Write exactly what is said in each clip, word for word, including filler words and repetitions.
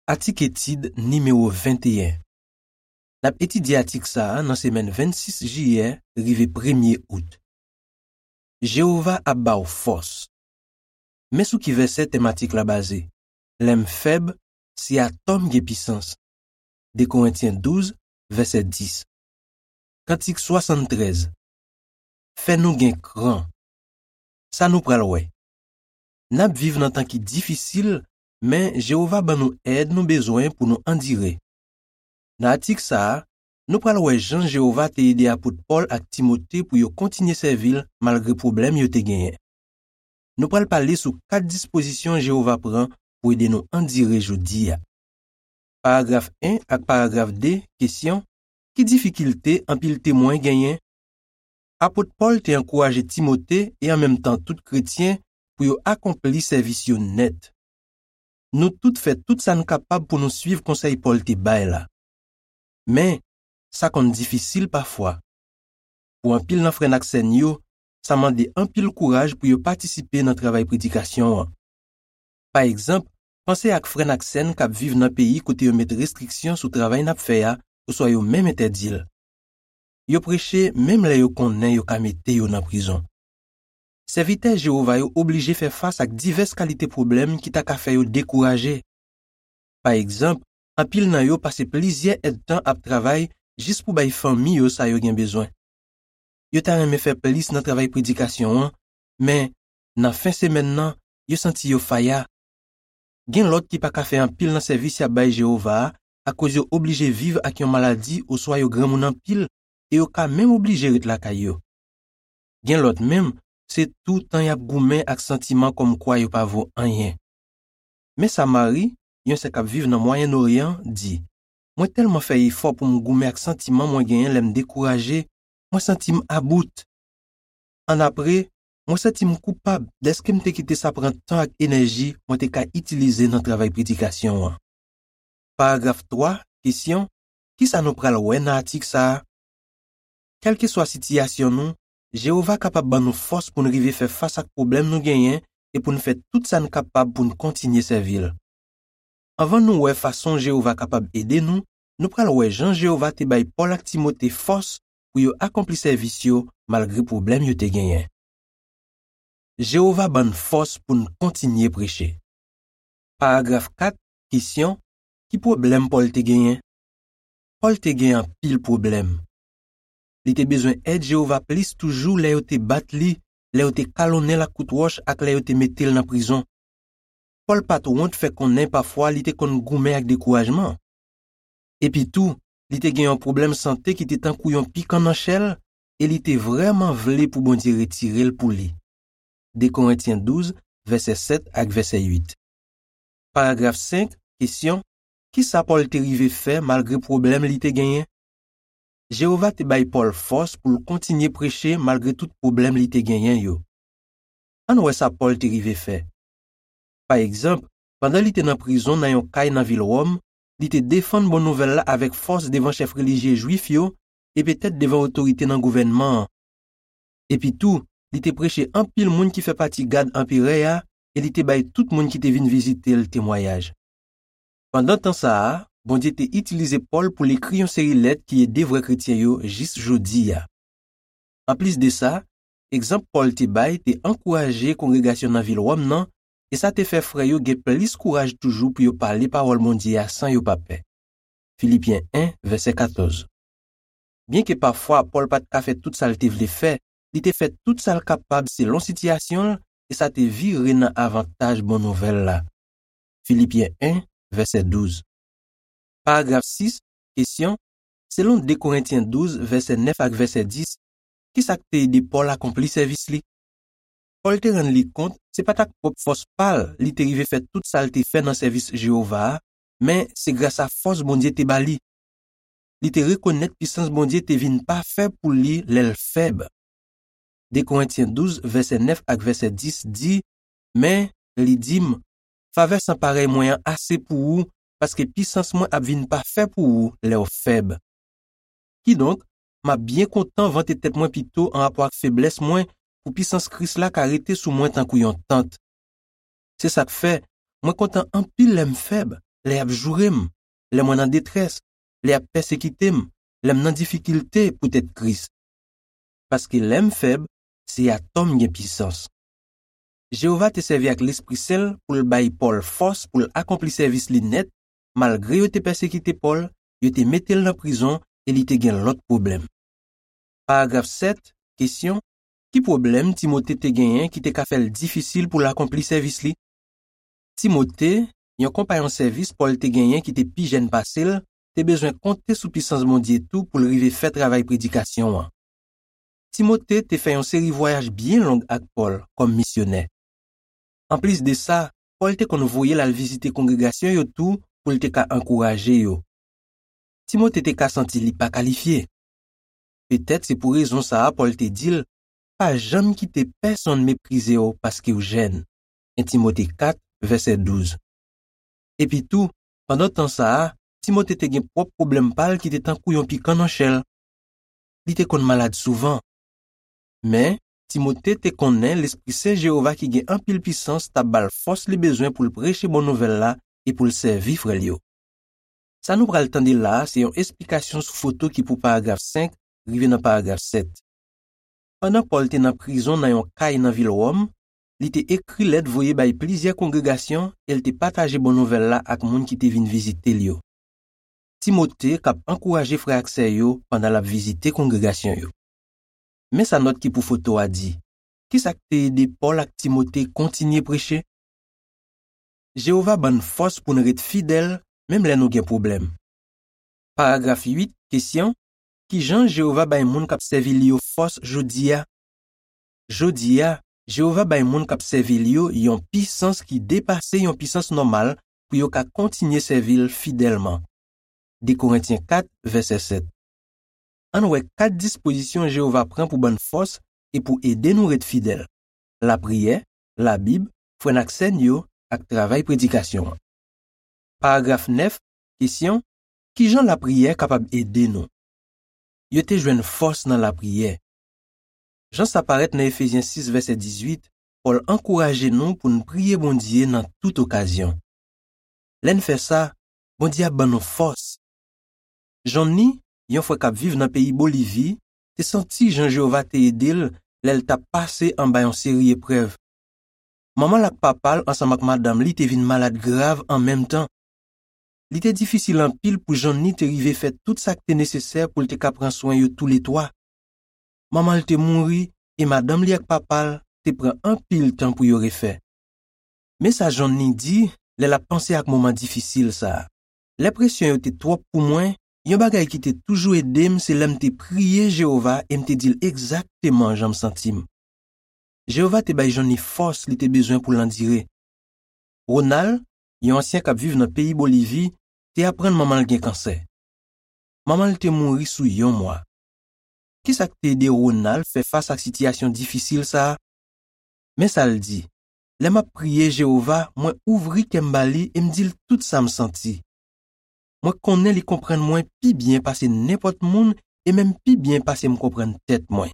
Atik etid nimewo venteyen. N ap etidye atik sa a nan semèn vennsis jiyè rive premye out. Jewova ap ba w fòs. Men sou ki vèsè tèmatik la baze: Lè m fèb, se atò m gen pisans. De Korentyen douz, vèsè dis. Kantik swasanntrèz. Fè nou gen kran. Sa nou pral wè? N ap viv nan tan ki difisil, men Jewova ban nou èd nou bezwen pou nou andire. Nan atik sa a, nou pral wè jan Jewova te ede apot Pòl ak Timote pou yo kontinye sèvi l malgre pwoblèm yo te genyen. Nou pral pale sou kat dispozisyon Jewova pran pou ede nou andire jodi a. Paragraf en ak paragraf de, kesyon: ki difikilte anpil temwen genyen? Apot Pòl te ankouraje Timote e an menm tan tout kretyen pou yo akonpli sèvis yo nèt. Nou tout fè tout sa n kapab pou nou suiv konsèy Pòl te bay la. Men, sa konn difisil pafwa. Pou anpil nan frè n ak sè n yo, sa mande anpil kouraj pou yo patisipe nan travay predikasyon an. Pa egzanp, panse ak frè n ak sè n k ap viv nan peyi kote yo met restriksyon sou travay n ap fè a oswa yo menm entèdi l. Yo preche menm lè yo konnen yo ka mete yo nan prizon. Sèvitè Jewova yo oblije fè fas ak divès kalite pwoblèm ki ta ka fè yo dekouraje. Pa egzanp, anpil nan yo pase plizyè èdtan ap travay jis pou bay fanmi yo sa yo gen bezwen. Yo ta renmen fè plis nan travay predikasyon an, men nan fen semèn nan, yo santi yo faya. Gen lòt ki pa ka fè anpil nan sèvis y ap bay Jewova a akoz yo oblije viv ak yon maladi oswa yo granmoun anpil e yo ka menm oblije ret lakay yo. Gen lòt menm, se toutan y ap goumen ak santiman kòmkwa yo pa vo anyen. Men sa Mari, yon sè k ap viv nan Mwayen Oryan, di: Mwen tèlman fè efò pou m goumen ak santiman mwen genyen lè m dekouraje, mwen santi m about. Annapre, mwen santi m koupab dèske m te kite sa pran tan ak enèji mwen te ka itilize nan travay predikasyon an. Paragraf twa, kesyon: ki sa nou pral wè nan atik sa a? Kèlkeswa sitiyasyon nou, Jewova kapab ban nou fòs pou n rive fè fas ak pwoblèm nou genyen e pou n fè tout sa n kapab pou n kontinye sèvi l. Anvan nou wè fason Jewova kapab ede nou, nou pral wè jan Jewova te bay Pòl ak Timote fòs pou yo akonpli sèvis yo malgre pwoblèm yo te genyen. Jewova ban n fòs pou n kontinye preche. Paragraf kat, kesyon: ki pwoblèm Pòl te genyen? Pòl te gen anpil pwoblèm. Li te bezwen èd Jewova plis toujou lè yo te bat li, lè yo te kalonnen l ak kout wòch ak lè yo te mete l nan prizon. Pòl pa t wont fè konnen pafwa li te konn goumen ak dekourajman. Epitou, li te gen yon pwoblèm sante ki te tankou yon pikan nan chè l, e li te vrèman vle pou Bondye retire l pou li. De Korentyen douz, vèsè sèt ak vèsè uit. Paragraf senk, kesyon: ki sa Pòl te rive fè malgre pwoblèm li te genyen? Jewova te bay Pòl fòs pou l kontinye preche malgre tout pwoblèm li te genyen yo. Ann wè sa Pòl te rive fè. Pa egzanp, pandan li te nan prizon nan yon kay nan vil Wòm, li te defann bon nouvèl la avèk fòs devan chèf relijye jwif yo e petèt devan otorite nan gouvènman an. Epitou, li te preche anpil moun ki fè pati gad anperè a e li te bay tout moun ki te vin vizite l temwayaj. Pandan tan sa a, Bondye te itilize Pòl pou l ekri yon seri lèt ki ede vrè kretyen yo jis jodi a. Anplis de sa, egzanp Pòl te bay te ankouraje kongregasyon nan vil Wòm nan, e sa te fè frè yo gen plis kouraj toujou pou yo pale pawòl Bondye a san yo pa pè. Filipyen en, vèsè katòz. Byenke pafwa Pòl pa t ka fè tout sa l te vle fè, li te fè tout sa l kapab selon sitiyasyon l, e sa te vire nan avantaj bon nouvèl la. Filipyen en, vèsè douz. Paragraf sis, kesyon: selon de Korentyen douz, vèsè nèf ak vèsè dis, ki sa k te ede Pòl akonpli sèvis li? Pòl te rann li kont se pa t ak pwòp fòs pa l li te rive fè tout sa l te fè nan sèvis Jewova a, men se gras a fòs Bondye te ba li. Li te rekonèt pisans Bondye te vin pafè pou li lè l fèb. De Korentyen douz, vèsè nèf ak vèsè dis di: men, li di m, favè san parèy mwen an ase pou ou, paske pisans mwen ap vin pafè pou ou lè w fèb. Kidonk, m ap byen kontan vante tèt mwen pito anrapò ak feblès mwen, pou pisans Kris la ka rete sou mwen tankou yon tant. Se sa k fè, mwen kontan anpil lè m fèb, lè y ap joure m, lè mwen nan detrès, lè y ap pèsekite m, lè m nan difikilte poutèt Kris. Paske lè m fèb, se atò m gen pisans. Jewova te sèvi ak Lespri Sen l pou l bay Pòl fòs pou l akonpli sèvis li nèt, malgre yo te pèsekite Pòl, yo te mete l nan prizon e li te gen lòt pwoblèm. Paragraf sèt, kesyon, ki pwoblèm Timote te genyen ki te ka fè l difisil pou l akonpli sèvis li? Timote, yon konpayon sèvis Pòl te genyen ki te pi jèn pase l, te bezwen konte sou pisans Bondye tou pou l rive fè travay predikasyon an. Timote te fè yon seri vwayaj byen long ak Pòl kòm misyonè. Anplis de sa, Pòl te konn voye l al vizite kongregasyon yo tou pou l te ka ankouraje yo. Timote te ka santi li pa kalifye. Petèt se pou rezon sa a Pòl te di l, pa janm kite pèsonn meprize w paske w jèn. En Timote kat, vèsè douz. Epitou, pandan tan sa a, Timote te gen pwòp pwoblèm pa l ki te tankou yon pikan nan chè l. Li te konn malad souvan. Men, Timote te konnen Lespri Sen Jewova ki gen anpil pisans t ap ba l fòs li bezwen pou l preche bon nouvèl la e pou l sèvi frè l yo. Sa nou pral tande la a se yon esplikasyon sou foto ki pou paragraf senk rive nan paragraf sèt. Pandan Pòl te nan prizon nan yon kay nan vil Wòm, li te ekri lèt voye bay plizyè kongregasyon e l te pataje bon nouvèl la ak moun ki te vin vizite l yo. Timote k ap ankouraje frè ak sè yo pandan l ap vizite kongregasyon yo. Men sa nòt ki pou foto a di. Ki sa k te ede Pòl ak Timote kontinye preche? Jewova ban n fòs pou n ret fidèl menm lè nou gen pwoblèm. Paragraf uit, kesyon, ki jan Jewova bay moun k ap sèvi l yo fòs jodi a? Jodi a, Jewova bay moun k ap sèvi l yo yon pisans ki depase yon pisans nòmal pou yo ka kontinye sèvi l fidèlman. De Korentyen kat, vèsè sèt. Ann wè kat dispozisyon Jewova pran pou ban n fòs e pou ede nou ret fidèl: lapriyè, Labib, frè n ak sè n yo, ak travay predikasyon an. Paragraf nèf, kesyon, ki jan lapriyè kapab ede nou? Yo te jwenn fòs nan lapriyè. Jan sa parèt nan Efezyen sis, vèsè dizuit, Pòl ankouraje nou pou n priye Bondye nan tout okazyon. Lè n fè sa, Bondye ap ban nou fòs. Johnny, yon frè k ap viv nan peyi Bolivi, te santi jan Jewova te ede l lè l t ap pase anba yon seri eprèv. Manman l ak papa l ansanm ak madanm li te vin malad grav an menm tan. Li te difisil anpil pou Johnny te rive fè tout sa k te nesesè pou l te ka pran swen yo toule twa. Manman l te mouri e madanm li ak papa l te pran anpil tan pou yo refè. Men sa Johnny di lè l ap panse ak moman difisil sa a: lè presyon yo te twòp pou mwen, yon bagay ki te toujou ede m se lè m te priye Jewova e m te di l egzakteman jan m santi m. Jewova te bay Johnny fòs li te bezwen pou l andire. Ronald, yon ansyen k ap viv nan peyi Bolivi, te aprann manman l gen kansè. Manman l te mouri sou yon mwa. Ki sa k te ede Ronald fè fas ak sitiyasyon difisil sa a? Men sa l di: lè m ap priye Jewova, mwen ouvri kè m ba li e m di l tout sa m santi. Mwen konnen li konprann mwen pi byen pase nenpòt moun e menm pi byen pase m konprann tèt mwen.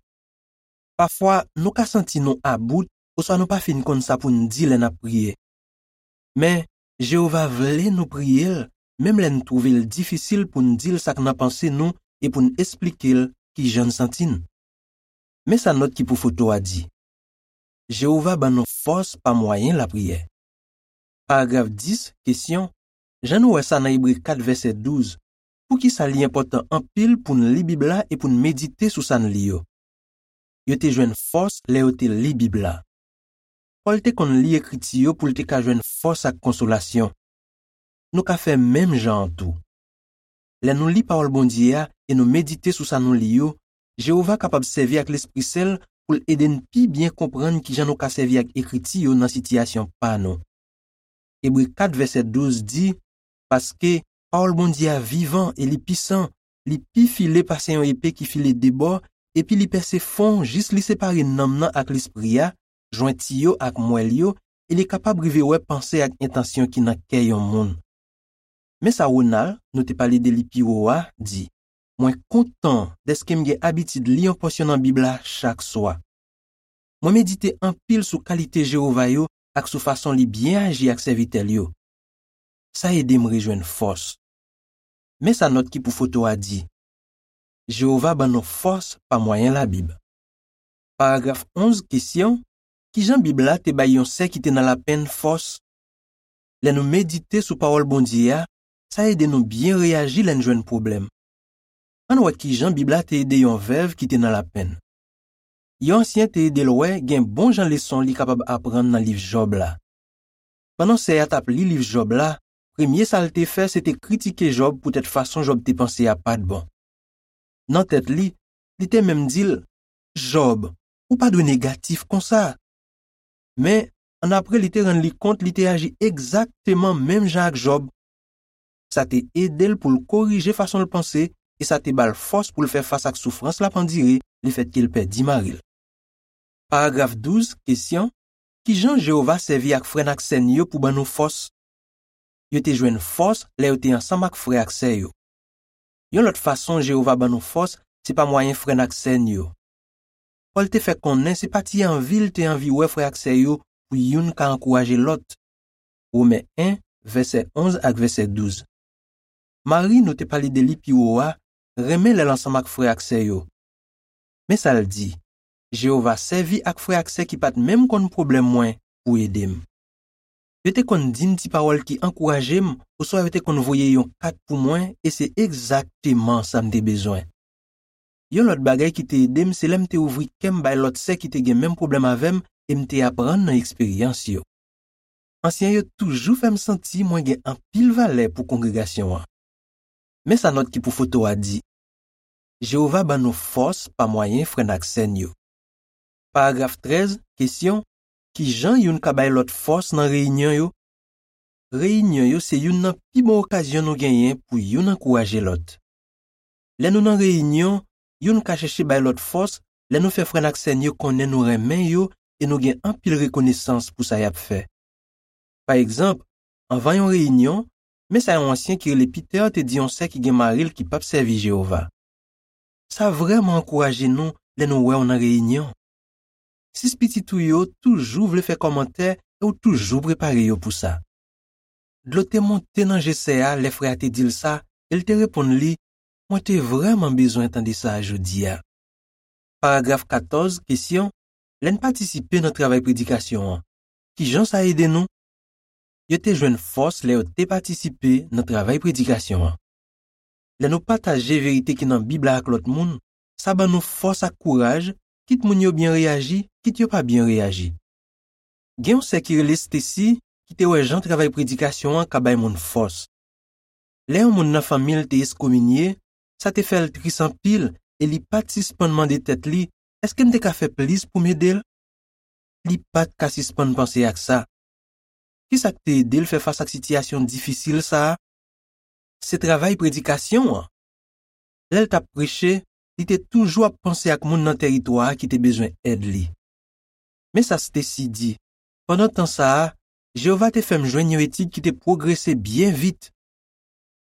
Pafwa, nou ka santi nou about oswa nou pa fin konn sa pou n di lè n ap priye. Men, Jewova vle nou priye l, menm lè n twouve l difisil pou n di l sa k nan panse nou e pou n esplike l ki jan n santi n. Men sa nòt ki pou foto a di: Jewova ban nou fòs pa mwayen lapriyè. Paragraf dis, kesyon, jan nou wè sa nan Ebre kat vèsè douz, poukisa li enpòtan anpil pou n li Bib la e pou n medite sou sa n li yo? Yo te jwenn fòs lè yo te li Bib la. Pòl te konn li Ekriti yo pou l te ka jwenn fòs ak konsolasyon. Nou ka fè menm jan an tou. Lè nou li Pawòl Bondye a e nou medite sou sa nou li yo, Jewova kapab sèvi ak Lespri Sen l pou l ede n pi byen konprann ki jan nou ka sèvi ak Ekriti yo nan sitiyasyon pa nou. Ebre kat vèsè douz di: Paske pawòl Bondye a vivan e li pisan, li pi file pase yon epe ki file de bò, epi li pèse fon jis li separe nanm nan ak lespri a, jwenti yo ak mwèl yo, e li kapab rive wè panse ak entansyon ki nan kè yon moun. Men sa Ronald, nou te pale de li pi wo a, di: Mwen kontan dèske m gen abitid li yon pòsyon nan Bib la chak swa. Mwen medite anpil sou kalite Jewova yo ak sou fason li byen aji ak sèvitè l yo. sa ede m rejwenn fòs. Men sa nòt ki pou foto a di: Jewova ban nou fòs pa mwayen Labib. Paragraf onz, kesyon: Ki jan Bib la te bay yon sè ki te nan lapenn fòs? Lè nou medite sou pawòl Bondye a, sa ede nou byen reyaji lè n jwenn pwoblèm. Ann wè ki jan Bib la te ede yon vèv ki te nan lapenn. Yon ansyen te ede l wè gen bon jan leson li kapab aprann nan liv Jòb la. Pandan sè a t ap li liv Jòb la, premye sa l te fè se te kritike Jòb poutèt fason Jòb te panse a pa t bon. Nan tèt li, li te menm di l: Jòb, ou pa dwe negatif konsa. Men, annapre li te rann li kont li te aji egzakteman menm jan ak Jòb. Sa te ede l pou l korije fason l panse e sa te ba l fòs pou l fè fas ak soufrans l ap andire lefètke l pèdi mari l. Paragraf douz, kesyon: Ki jan Jewova sèvi ak frè n ak sè n yo pou ban nou fòs? Yo te jwenn fòs lè yo te ansanm ak frè ak sè yo. Yon lòt fason Jewova ban nou fòs se pa mwayen frè n ak sè n yo. Pòl te fè konnen se pa ti anvi l te anvi wè frè ak sè yo pou youn ka ankouraje lòt. Women en, vèsè onz ak vèsè douz. Mari, nou te pale de li pi wo a, renmen lè l ansanm ak frè ak sè yo. Men sa l di: Jewova sèvi ak frè ak sè ki pa t menm konn pwoblèm mwen pou ede m. Yo te konn di m ti pawòl ki ankouraje m, oswa yo te konn voye yon kat pou mwen, e se egzakteman sa m te bezwen. Yon lòt bagay ki te ede m se lè m te ouvri kè m bay lòt sè ki te gen menm pwoblèm avè m e m te aprann nan eksperyans yo. Ansyen yo toujou fè m santi mwen gen anpil valè pou kongregasyon an. Men sa nòt ki pou foto a di: Jewova ban nou fòs pa mwayen frè n ak sè n yo. Paragraf trèz, kesyon: Ki jan youn ka bay lòt fòs nan reyinyon yo? Reyinyon yo se youn nan pi bon okazyon nou genyen pou youn ankouraje lòt. Lè nou nan reyinyon, youn ka chèche bay lòt fòs lè nou fè frè n ak sè n yo konnen nou renmen yo e nou gen anpil rekonesans pou sa y ap fè. Pa egzanp, anvan yon reyinyon, men sa yon ansyen ki rele Peter te di yon sè ki gen mari l ki pap sèvi Jewova: Sa vrèman ankouraje nou lè nou wè w nan reyinyon. Sis pitit ou yo toujou vle fè kòmantè e w toujou prepare yo pou sa. Dlo te monte nan je sè a lè frè a te di l sa, e l te reponn li: Mwen te vrèman bezwen tande sa a jodi a. Paragraf katòz, kesyon: Lè n patisipe nan travay predikasyon an, ki jan sa ede nou? Yo te jwenn fòs lè yo te patisipe nan travay predikasyon an. Lè nou pataje verite ki nan Bib la ak lòt moun, sa ban nou fòs ak kouraj, kit moun yo byen reyaji, kit yo pa byen reyaji. Gen yon sè ki rele Stacy ki te wè jan travay predikasyon an ka bay moun fòs. Lè yon moun nan fanmi l te eskominye, sa te fè l tris anpil e li pa t sispann mande tèt li: Èske m te ka fè plis pou m ede l? Li pa t ka sispann panse ak sa. Ki sa k te ede l fè fas ak sitiyasyon difisil sa a? Se travay predikasyon an. Lè l t ap preche, li te toujou ap panse ak moun nan tèritwa a ki te bezwen èd li. Men sa Stacy di: Pandan tan sa a, Jewova te fè m jwenn yon etid ki te pwogrese byen vit.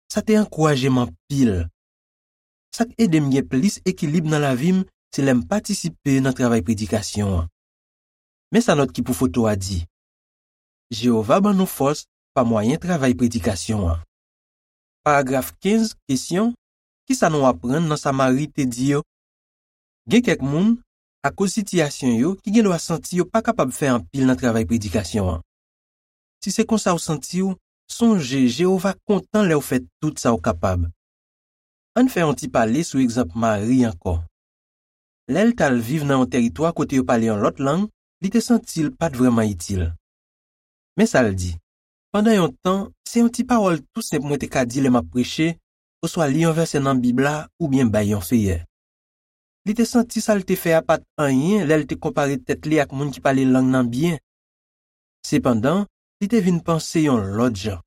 Sa te ankouraje m anpil. Sa k ede m gen plis ekilib nan lavi m se lè m patisipe nan travay predikasyon an. Men sa nòt ki pou foto a di: Jewova ban nou fòs pa mwayen travay predikasyon an. Paragraf kenz, kesyon: Ki sa nou aprann nan sa Mari te di yo? Gen kèk moun, akoz sitiyasyon yo, ki gendwa santi yo pa kapab fè anpil nan travay predikasyon an. Si se konsa w santi w, sonje Jewova kontan lè w fè tout sa w kapab. Ann fè yon ti pale sou egzanp Mari ankò. Lè l t al viv nan yon tèritwa kote yo pale yon lòt lang, li te santi l pa t vrèman itil. Men sa l di: Pandan yon tan, se yon ti pawòl tou senp mwen te ka di lè m ap preche, oswa li yon vèsè nan Bib la, oubyen bay yon feyè. Li te santi sa l te fè a pa t anyen lè l te konpare tèt li ak moun ki pale lang nan byen. Sepandan, li te vin panse yon lòt jan.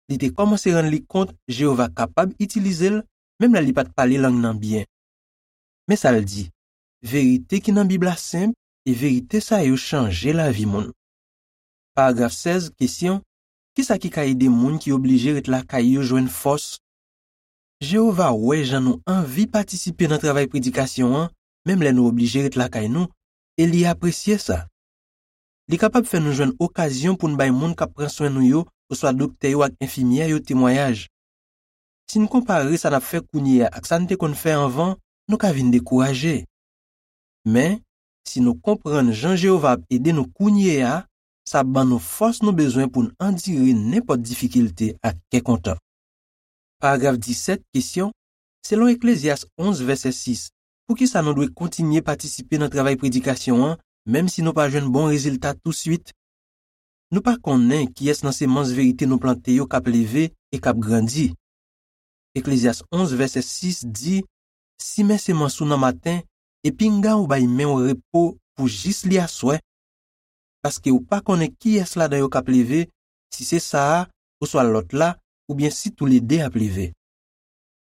Li te kòmanse rann li kont Jewova kapab itilize l, menm lè li pa t pale lang nan byen. Men sa l di: Verite ki nan Bib la senp, e verite sa yo chanje lavi moun. Paragraf sèz, kesyon: Ki sa ki ka ede moun ki oblije ret lakay yo jwenn fòs? Jewova wè jan nou anvi patisipe nan travay predikasyon an, menm lè nou oblije ret lakay nou, e li apresye sa. Li kapab fè nou jwenn okazyon pou n bay moun k ap pran swen nou yo oswa doktè yo ak enfimyè yo temwayaj. Si n konpare sa n ap fè kounye a ak sa n te konn fè anvan, nou ka vin dekouraje. Men, si nou konprann jan Jewova ap ede nou kounye a, sa ap ban nou fòs nou bezwen pou n andire nenpòt difikilte ak kè kontan. Paragraf disèt, kesyon, selon Eklezyas onz, vèsè sis, poukisa nou dwe kontinye patisipe nan travay predikasyon an, menm si nou pa jwenn bon rezilta touswit? Nou pa konnen kiyès nan semans verite nou plante yo k ap leve e k ap grandi. Eklezyas onz, vèsè sis di, simen semans ou nan maten, e pinga ou bay men w repo pou jis li aswè, paske ou pa konnen kiyès ladan yo k ap leve, si se sa a, oswa lòt la, oubyen si toulede ap leve.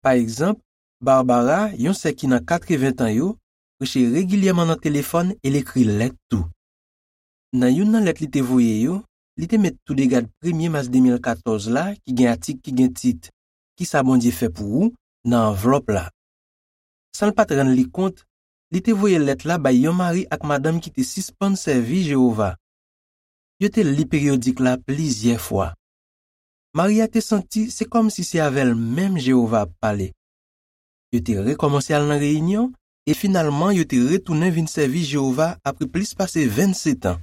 Pa egzanp, Barbara, yon sè ki nan katreven tan yo, preche regilyèman nan telefòn e l ekri lèt tou. Nan youn nan lèt li te voye yo, li te met Toudegad premye mas de mil katòz la, ki gen atik ki gen tit Kisa Bondye fè pou ou? Nan anvlòp la. San l pa t rann li kont, li te voye lèt la bay yon mari ak madanm ki te sispann sèvi Jewova. Yo te li peryodik la plizyè fwa. Mari a te santi se kòmsi se avè l menm Jewova ap pale. Yo te rekòmanse al nan reyinyon, e finalman yo te retounen vin sèvi Jewova apre plis pase vennsetan.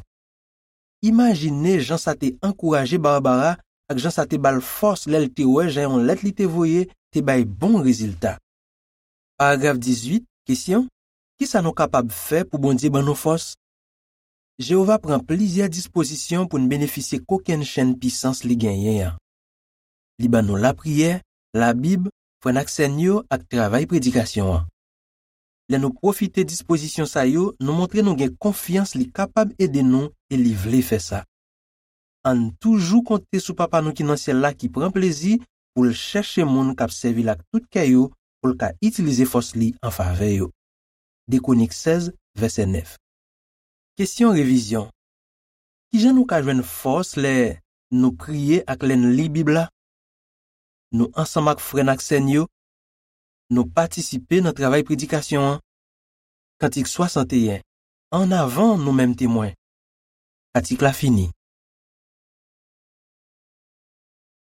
Imajine jan sa te ankouraje Barbara ak jan sa te ba l fòs lè l te wè jan yon lèt li te voye te bay bon rezilta. Paragraf dizuit, kesyon, kisa nou kapab fè pou Bondye ban nou fòs? Jewova pran plizyè dispozisyon pou n benefisye kokennchenn pisans li genyen an. Li ban nou lapriyè, Labib, frè n ak sè n yo ak travay predikasyon an. Lè nou pwofite dispozisyon sa yo, nou montre nou gen konfyans li kapab ede nou e li vle fè sa. Ann toujou konte sou Papa nou ki nan syèl la ki pran plezi pou l chèche moun k ap sèvi l ak tout kè yo pou l ka itilize fòs li an favè yo. De Kwonik sèz, vèsè nèf. Kesyon revizyon. Kijan nou ka jwenn fòs lè nou priye ak lè n li Bib la? Nou ansanm ak frè n ak sè n yo? Nou patisipe nan travay predikasyon an? Kantik swasanteyen. Ann avan nou menm temwen. Atik la fini.